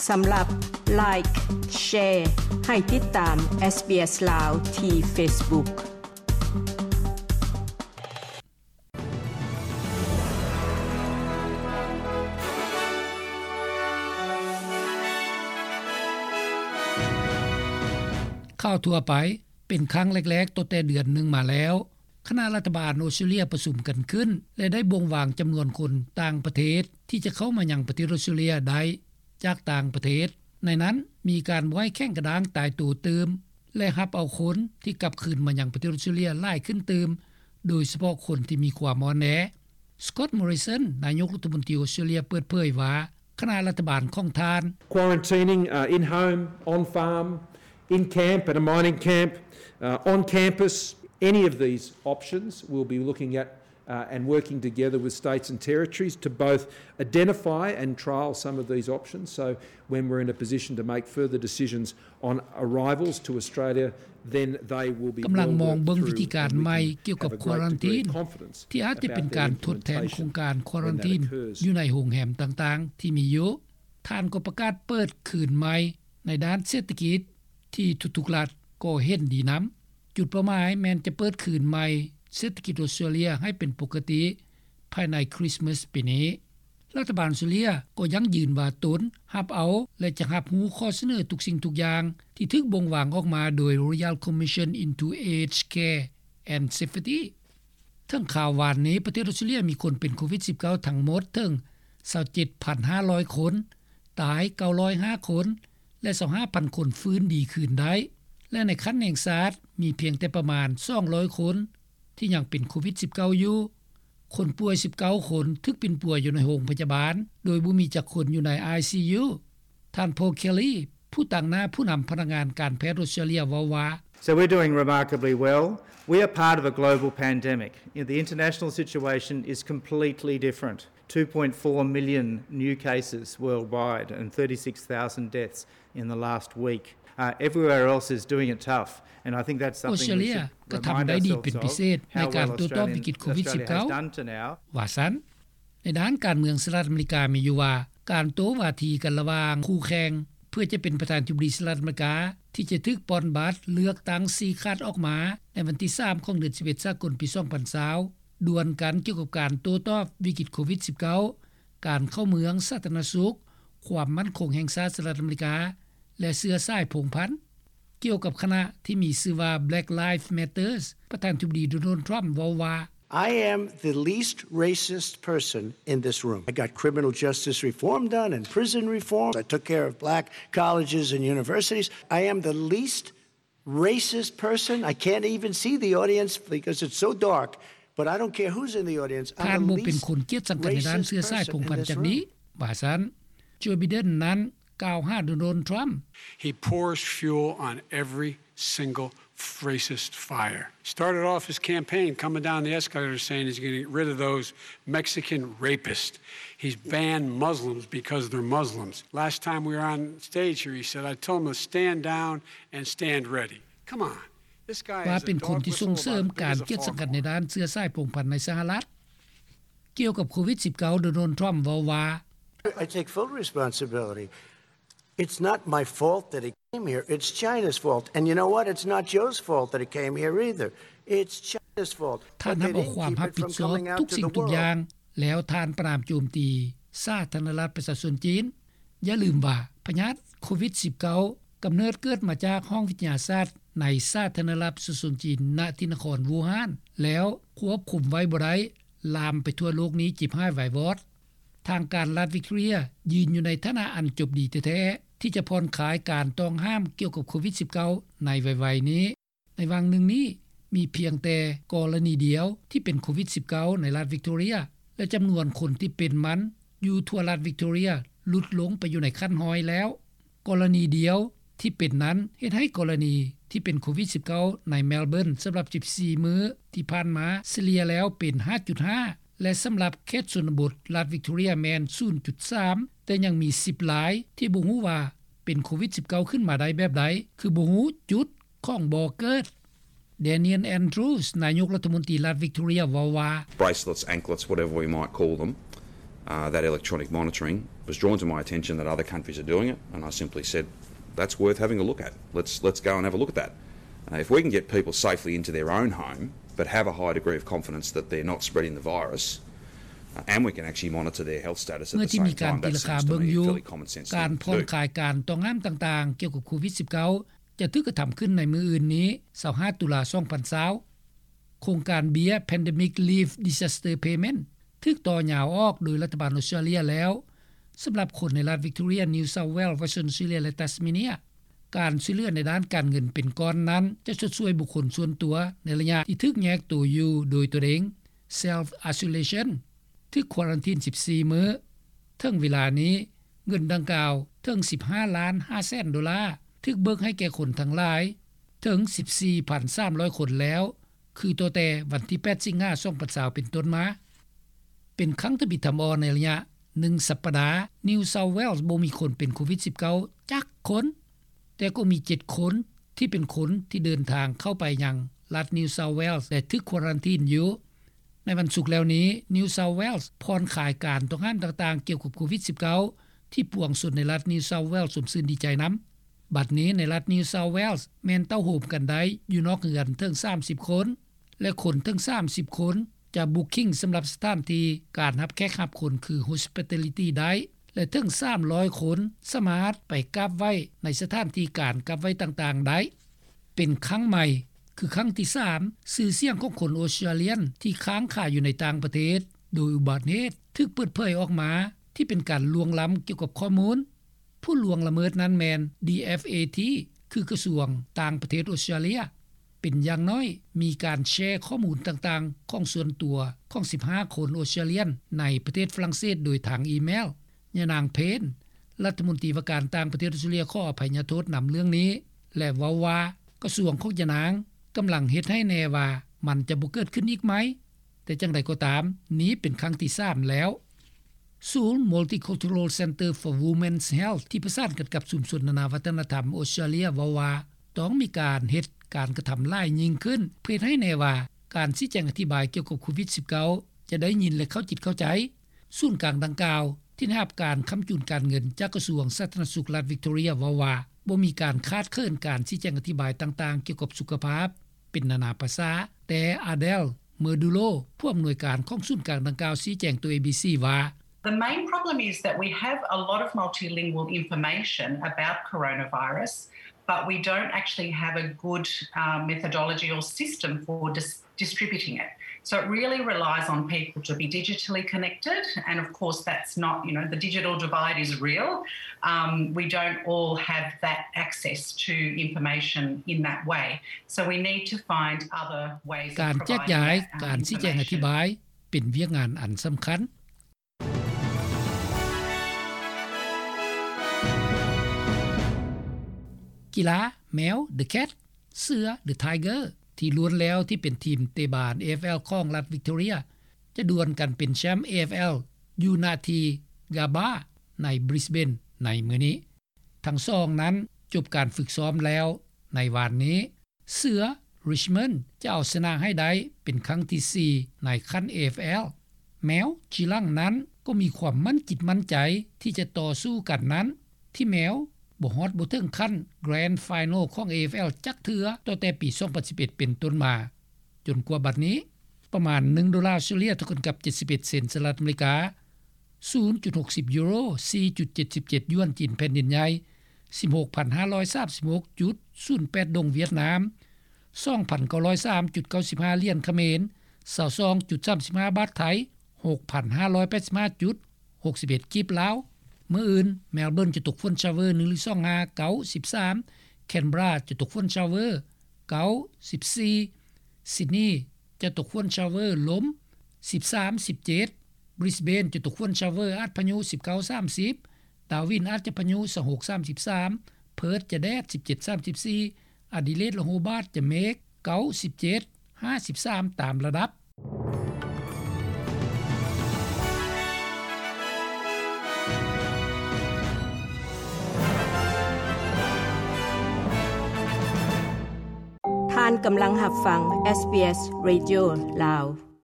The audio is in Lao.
ສຳລັບ Like, Share ໃຫ້ຕິດຕາມ SBS ລາວ ທີ່ Facebook. ຂ່າວທົ່ວໄປ. ເປັນຄັ້ງແລກໆ ຕັ້ງແຕ່ເດືອນໜຶ່ງມາແລ້ວ ຄະນະລັດຖະບານອົດສະຕຣາເລຍປະຊຸມກັນຂຶ້ນ ແລະ ໄດ້ບົ່ງວາງຈຳນວນຄົນຕ່າງປະເທດ ທີ່ຈະເຂົ້າມາຍັງປະເທດອົດສະຕຣາເລຍໄດ້ຈາກຕ່າງປະເທດ. ໃນນັ້ນມີການບໍ່ໃຫ້ແຂງກະດ້າງຕາຍໂຕຕື່ມ ແລະ ຮັບເອົາຄົນທີ່ກັບຄືນມາຍັງປະເທດອົດສະຕຣາເລຍຫຼາຍຂຶ້ນຕື່ມ, ໂດຍສະເພາະຄົນທີ່ມີຄວາມອ່ອນແອ. Scott Morrison ນາຍົກລັດຖະມົນຕີອົດສະຕຣາເລຍ ເປີດເຜີຍວ່າ ຄະນະລັດຖະບານຂອງທ່ານ Quarantining, uh, in home, on farm, in camp, at a mining camp, uh, on campus, any of these options we'll be looking at, uh, and working together with states and territories to both identify and trial some of these options. So when we're in a position to make further decisions on arrivals to Australia, then they will be well worked through and we can have a great degree of confidence about the implementation of that. ກຳລັງມອງເບິ່ງວິທີການໃໝ່ກ່ຽວກັບຄວາຣັນທີນ ທີ່ອາດຈະເປັນການທົດແທນໂຄງການຄວາຣັນທີນຢູ່ໃນໂຮງແຮມຕ່າງໆທີ່ມີຢູ່. ທ່ານກໍປະກາດເປີດຄືນໃໝ່ໃນດ້ານເສດຖະກິດ ທີ່ທຸກໆລັດກໍເຫັນດີນຳ. ຈຸດເປົ້າໝາຍແມ່ນຈະເປີດຄືນໃໝ່ເສດຖະກິດອົດສະຕຣາເລຍໃຫ້ເປັນປົກກະຕິພາຍໃນຄຣິສມາສປີນີ້. ລັດຖະບານອົດສະຕຣາເລຍກໍຢັ້ງຢືນວ່າຕົນຮັບເອົາ ແລະ ຈະຮັບຮູ້ຂໍ້ສະເໜີທຸກສິ່ງທຸກຢ່າງທີ່ຖືກບົ່ງວາງອອກມາໂດຍ Royal Commission into Aged Care and Safety. ເຖິງຂ່າວວານນີ້ ປະເທດອົດສະຕຣາເລຍມີຄົນເປັນໂຄວິດສິບເກົ້າທັງໝົດເຖິງຊາວເຈັດພັນຫ້າຮ້ອຍຄົນ, ຕາຍເກົ້າຮ້ອຍຫ້າຄົນ ແລະ ຊາວຫ້າພັນຄົນຟື້ນດີຄືນໄດ້ ແລະ ໃນຂັ້ນແຫ່ງຊາດມີພຽງແຕ່ປະມານສອງຮ້ອຍຄົນທີ່ຍັງເປັນໂຄວິດສິບເກົ້າຢູ່. ຄົນປ່ວຍສິບເກົ້າຄົນຖືກປິ່ນປົວຢູ່ໃນໂຮງພະຍາບານ ໂດຍບໍ່ມີຈັກຄົນຢູ່ໃນ ໄອຊີຢູ. ທ່ານ Paul Kelly ຜູ້ຕາງໜ້າຜູ້ນຳພະນັກງານການແພດອົດສະຕຣາເລຍເວົ້າວ່າ So we're doing remarkably well. We are part of a global pandemic. The international situation is completely different. Two point four million new cases worldwide and thirty-six thousand deaths in the last week. Uh, everywhere else is doing it tough. And I think that's something we should remind ourselves of, how well Australia, Australia has done to now. ວ່າຊັ້ນ. ໃນດ້ານການເມືອງ ສະຫະລັດອາເມລິກາມີຢູ່ວ່າ ການໂຕ້ວາທີກັນລະຫວ່າງຄູ່ແຂ່ງ ເພື່ອຈະເປັນປະທານາທິບໍດີສະຫະລັດອາເມລິກາ ທີ່ຈະຖືກປ່ອນບັດເລືອກຕັ້ງຊີ້ຂາດອອກມາໃນວັນທີສາມຂອງເດືອນສິບເອັດສາກົນປີສອງພັນຊາວ ດວນກັນກ່ຽວກັບການໂຕ້ຕອບວິກິດໂຄວິດສິບເກົ້າ, ການເຂົ້າເມືອງ, ສາທາລະນະສຸກ, ຄວາມໝັ້ນຄົງແຫ່ງຊາດສະຫະລັດອາເມລິກາ ແລະ ເຊື້ອສາຍພົງພັນ. ກ່ຽວກັບຄະນະທີ່ມີຊື່ວ່າ Black Lives Matters, ປະທານາທິບໍດີ ໂດນັລ ທຣຳ ເວົ້າວ່າ I am the least racist person in this room. I got criminal justice reform done and prison reform. I took care of black colleges and universities. I am the least racist person. I can't even see the audience because it's so dark. But I don't care who's in the audience. ທ່ານບໍ່ເປັນຄົນກຽດຊັງກັນໃນດ້ານເຊື້ອສາຍພົງພັນຈັກດີ້ ວ່າຊັ້ນ. ໂຈ ໄບເດັນ ນັ້ນ ກ່າວຫາໂດນັລ ທຣຳ. He pours fuel on every single racist fire. Started off his campaign coming down the escalator saying he's gonna get rid of those Mexican rapists. He's banned Muslims because they're Muslims. Last time we were on stage here, he said, I told him to stand down and stand ready. Come on. This guy is a dog whistle about big as a foghorn. ວ່າເປັນຄົນທີ່ສົ່ງເສີມການກຽດຊັງກັນໃນດ້ານເຊື້ອສາຍພົງພັນໃນສະຫະລັດ. ກ່ຽວກັບໂຄວິດສິບເກົ້າ ໂດນັລ ທຣຳ ເວົ້າວ່າ I take full responsibility. It's not my fault that he came here. It's China's fault. And you know what? It's not Joe's fault that he came here either. It's China's fault. ທ່ານຮັບເອົາຄວາມຮັບຜິດຊອບທຸກສິ່ງທຸກຢ່າງ ແລ້ວທ່ານປະນາມໂຈມຕີສາທາລະນະລັດປະຊາຊົນຈີນ. ຢ່າລືມວ່າ ພະຍາດໂຄວິດສິບເກົ້າ ກຳເນີດເກີດມາຈາກຫ້ອງວິທະຍາສາດໃນສາທາລະນະລັດປະຊາຊົນຈີນ ນະທີ່ນະຄອນວູຮານ ແລ້ວຄວບຄຸມໄວ້ບໍ່ໄດ້ ລາມໄປທົ່ວໂລກນີ້ ຈິບຮ້າຍວາຍວອດ. ທາງການລັດວິກຕໍເຣຍຢືນຢູ່ໃນຖານະອັນຈົບດີແທ້ໆ ທີ່ຈະຜ່ອນຄາຍການຕ້ອງຫ້າມກ່ຽວກັບໂຄວິດສິບເກົ້າ ໃນໄວໆນີ້. ໃນຫວ່າງໜຶ່ງນີ້ ມີພຽງແຕ່ກໍລະນີດຽວທີ່ເປັນໂຄວິດສິບເກົ້າ ໃນລັດວິກຕໍເຣຍ ແລະ ຈຳນວນຄົນທີ່ເປັນມັນຢູ່ທົ່ວລັດວິກຕໍເຣຍຫຼຸດລົງໄປຢູ່ໃນຂັ້ນຮ້ອຍແລ້ວ. ກໍລະນີດຽວທີ່ເປັນນັ້ນ ເຮັດໃຫ້ກໍລະນີທີ່ເປັນໂຄວິດສິບເກົ້າ ໃນແມລເບີນ ສຳລັບສິບສີ່ມື້ທີ່ຜ່ານມາ ສະເລ່ຍແລ້ວເປັນຫ້າຈຸດຫ້າ ແລະ ສຳລັບເຂດຊົນນະບົດລັດວິກຕໍເຣຍແມ່ນສູນຈຸດສາມ ແຕ່ຍັງມີສິບລາຍທີ່ບໍ່ຮູ້ວ່າເປັນໂຄວິດສິບເກົ້າ ຂຶ້ນມາໄດ້ແບບໃດ ຄືບໍ່ຮູ້ຈຸດຂອງບໍ່ເກີດ. Daniel Andrews ນາຍົກລັດຖະມົນຕີລັດວິກຕໍເຣຍ ເວົ້າວ່າ Bracelets, anklets, whatever we might call them, uh, that electronic monitoring, was drawn to my attention that other countries are doing it, and I simply said, "That's worth having a look at. Let's, let's go and have a look at that." Uh, if we can get people safely into their own home, but have a high degree of confidence that they're not spreading the virus, uh, and we can actually monitor their health status at the same time, that seems to me a fairly common sense thing to do. ເມື່ອທີ່ມີການຕີລາຄາເບິ່ງຢູ່ ການຜ່ອນຄາຍການຕ້ອງຫ້າມຕ່າງໆ ກ່ຽວກັບໂຄວິດສິບເກົ້າ ຈະຖືກກະທຳຂຶ້ນໃນມື້ອື່ນນີ້ ຊາວຫ້າ ຕຸລາ ສອງພັນຊາວ. ໂຄງການເບ້ຍ Pandemic Leave Disaster Payment ຖືກຕໍ່ຍາວອອກໂດຍລັດຖະບານອົດສະຕຣາເລຍແລ້ວ ສຳລັບຄົນໃນລັດ Victoria, New South Wales, Western Australia ແລະ Tasmania. ການຊ່ວຍເຫຼືອໃນດ້ານການເງິນເປັນກ້ອນນັ້ນ ຈະຊົດຊ່ວຍບຸກຄົນສ່ວນຕົວໃນໄລຍະທີ່ຖືກແຍກໂຕຢູ່ໂດຍຕົນເອງ Self Isolation, ຖືກຄວາຣັນທີນສິບສີ່ມື້. ເຖິງເວລານີ້ ເງິນດັ່ງກ່າວເຖິງສິບຫ້າລ້ານຫ້າແສນໂດລາ, ຖືກເບີກໃຫ້ແກ່ຄົນທັງຫຼາຍເຖິງສິບສີ່ພັນສາມຮ້ອຍຄົນແລ້ວ ຄືຕັ້ງແຕ່ວັນທີແປດ ສິງຫາ ສອງພັນຊາວ ເປັນຕົ້ນມາ. ເປັນຄັ້ງທຳອິດທຳອິດໃນໄລຍະໜຶ່ງສັບປະດາ New South Wales ບໍ່ມີຄົນເປັນໂຄວິດສິບເກົ້າຈັກຄົນ, ແຕ່ກໍມີເຈັດຄົນທີ່ເປັນຄົນທີ່ເດີນທາງເຂົ້າໄປຍັງລັດ New South Wales ແລະ ຖືກຄວາຣັນທີນຢູ່. ໃນວັນສຸກແລ້ວນີ້ New South Wales ຜ່ອນຄາຍການຕ້ອງຫ້າມຕ່າງໆກ່ຽວກັບໂຄວິດສິບເກົ້າ ທີ່ປວງຊົນໃນລັດ New South Wales ຊົມຊື່ນດີໃຈນຳ. ບັດນີ້ໃນລັດ New South Wales ແມ່ນເຕົ້າໂຮມກັນໄດ້ຢູ່ນອກເຮືອນເຖິງສາມສິບຄົນ ແລະ ຄົນເຖິງສາມສິບຄົນຈະ booking ສຳລັບສະຖານທີ່ການຮັບແຂກຮັບຄົນຄື hospitality ໄດ້ ແລະ ເຖິງສາມຮ້ອຍຄົນສາມາດໄປກາບໄຫວ້ໃນສະຖານທີ່ການກາບໄຫວ້ຕ່າງໆໄດ້. ເປັນຄັ້ງໃໝ່ ຄືຄັ້ງທີສາມ ຊື່ສຽງຂອງຄົນອົດສະຕຣາເລຍນທີ່ຄ້າງຂາຍຢູ່ໃນຕ່າງປະເທດໂດຍອຸບັດເຫດຖືກເປີດເຜີຍອອກມາ ທີ່ເປັນການລ່ວງລ້ຳກ່ຽວກັບຂໍ້ມູນ. ຜູ້ລ່ວງລະເມີດນັ້ນແມ່ນ DFAT ຄືກະຊວງຕ່າງປະເທດອົດສະຕຣາເລຍ. ເປັນຢ່າງໜ້ອຍມີການແຊຂໍ້ມູນຕ່າງໆຂອງສ່ວນຕົວຂອງສິບຫ້າຄົນອົດສະຕຣາເລຍນໃນປະເທດຝຣັ່ງເສດໂດຍທາງອີເມວ. ຍານາງ Payne ລັດຖະມົນຕີວ່າການຕ່າງປະເທດອົດສະຕຣາເລຍ ຂໍອະໄພຍະໂທດນຳເລື່ອງນີ້ ແລະ ເວົ້າວ່າກະຊວງຂອງຍານາງກຳລັງເຮັດໃຫ້ແນ່ວ່າມັນຈະບໍ່ເກີດຂຶ້ນອີກໃໝ່, ແຕ່ຈັ່ງໃດກໍຕາມ ນີ້ເປັນຄັ້ງທີສາມແລ້ວ. ສູນ Multicultural Centre for Women's Health ທີ່ປະສານກັນກັບຊຸມຊົນນານາວັດທະນະທຳອົດສະຕຣາເລຍເວົ້າວ່າ ຕ້ອງມີການເຮັດການກະທຳຫຼາຍຍິ່ງຂຶ້ນ ເພື່ອເຮັດໃຫ້ແນ່ວ່າການຊີ້ແຈງອະທິບາຍກ່ຽວກັບໂຄວິດສິບເກົ້າ ຈະໄດ້ຍິນ ແລະ ເຂົ້າຈິດເຂົ້າໃຈ. ສູນກາງດັ່ງກ່າວ ທີ່ໄດ້ຮັບການຄ້ຳຈູນການເງິນຈາກກະຊວງສາທາລະນະສຸກລັດ Victoria ເວົ້າວ່າ ບໍ່ມີການຂາດເຂີນການຊີ້ແຈງອະທິບາຍຕ່າງໆກ່ຽວກັບສຸຂະພາບເປັນນານາພາສາ, ແຕ່ Adele Merdulo ຜູ້ອຳນວຍການຂອງສູນກາງດັ່ງກ່າວ ຊີ້ແຈງຕໍ່ ເອບີຊີ ວ່າ The main problem is that we have a lot of multilingual information about coronavirus, but we don't actually have a good, uh, methodology or system for dis- distributing it. So it really relies on people to be digitally connected, and of course that's not, you know, the digital divide is real. Um, we don't all have that access to information in that way. So we need to find other ways of providing that, um, information. ການແຈກຢາຍ ການຊີ້ແຈງອະທິບາຍ ເປັນວຽກງານອັນສຳຄັນ. ກິລາ ແມວ The Cat, ເສືອ The Tiger ທີ່ລ້ວນແລ້ວທີ່ເປັນທີມເຕະບານ ເອເອັຟແອລ ຂອງລັດ Victoria ຈະດວນກັນເປັນແຊ້ມ ເອເອັຟແອລ ຢູ່ນະທີ່ Gabba ໃນ Brisbane ໃນມື້ນີ້. ທັງສອງນັ້ນຈົບການຝຶກຊ້ອມແລ້ວໃນວານນີ້. ເສືອ Richmond ຈະເອົາຊະນະໃຫ້ໄດ້ເປັນຄັ້ງທີສີ່ໃນຂັ້ນ ເອເອັຟແອລ. ແມວ Geelong ນັ້ນກໍມີຄວາມໝັ້ນຈິດໝັ້ນໃຈທີ່ຈະຕໍ່ສູ້ກັນນັ້ນ, ທີ່ແມວບໍ່ຮອດບໍ່ເຖິງຂັ້ນ Grand Final ຂອງ ເອເອັຟແອລ ຈັກເທື່ອ ຕັ້ງແຕ່ປີສອງພັນສິບເອັດເປັນຕົ້ນມາ. ຈົນກວ່າບັດນີ້ ປະມານໜຶ່ງໂດລາອົດສະຕຣາເລຍ ເທົ່າກັນກັບເຈັດສິບເອັດເຊັນສະຫະລັດອາເມລິກາ, ສູນຈຸດຫົກສິບຢູໂຣ, ສີ່ຈຸດເຈັດສິບເຈັດຢວນຈີນແຜ່ນດິນໃຫຍ່, ສິບຫົກພັນຫ້າຮ້ອຍສາມສິບຫົກຈຸດສູນແປດດົງຫວຽດນາມ, ສອງພັນເກົ້າຮ້ອຍສາມຈຸດເກົ້າສິບຫ້າຫຼຽນຂະເໝນ, ຊາວສອງຈຸດສາມສິບຫ້າບາດໄທ, ຫົກພັນຫ້າຮ້ອຍແປດສິບຫ້າຈຸດຫົກສິບເອັດກີບລາວ. ມື້ອື່ນ Melbourne ຈະຕົກຝົນ shower ໜຶ່ງຫຼືສອງຫາ ເກົ້າສິບສາມ, Canberra ຈະຕົກຝົນ shower ເກົ້າສິບສີ່, Sydney ຈະຕົກຝົນ shower ລົມ ສິບສາມສິບເຈັດ, Brisbane ຈະຕົກຝົນ shower ອາດພະຍຸ ສິບເກົ້າສາມສິບ, Darwin ອາດຈະພະຍຸ ຊາວຫົກສາມສິບສາມ, Perth ຈະແດດ ສິບເຈັດສາມສິບສີ່, Adelaide ແລະ Hobart ຈະເມກ ເກົ້າສິບເຈັດ ຫ້າສິບສາມ ຕາມລະດັບ. ທ່ານກຳລັງຮັບຟັງ SBS Radio ລາວ.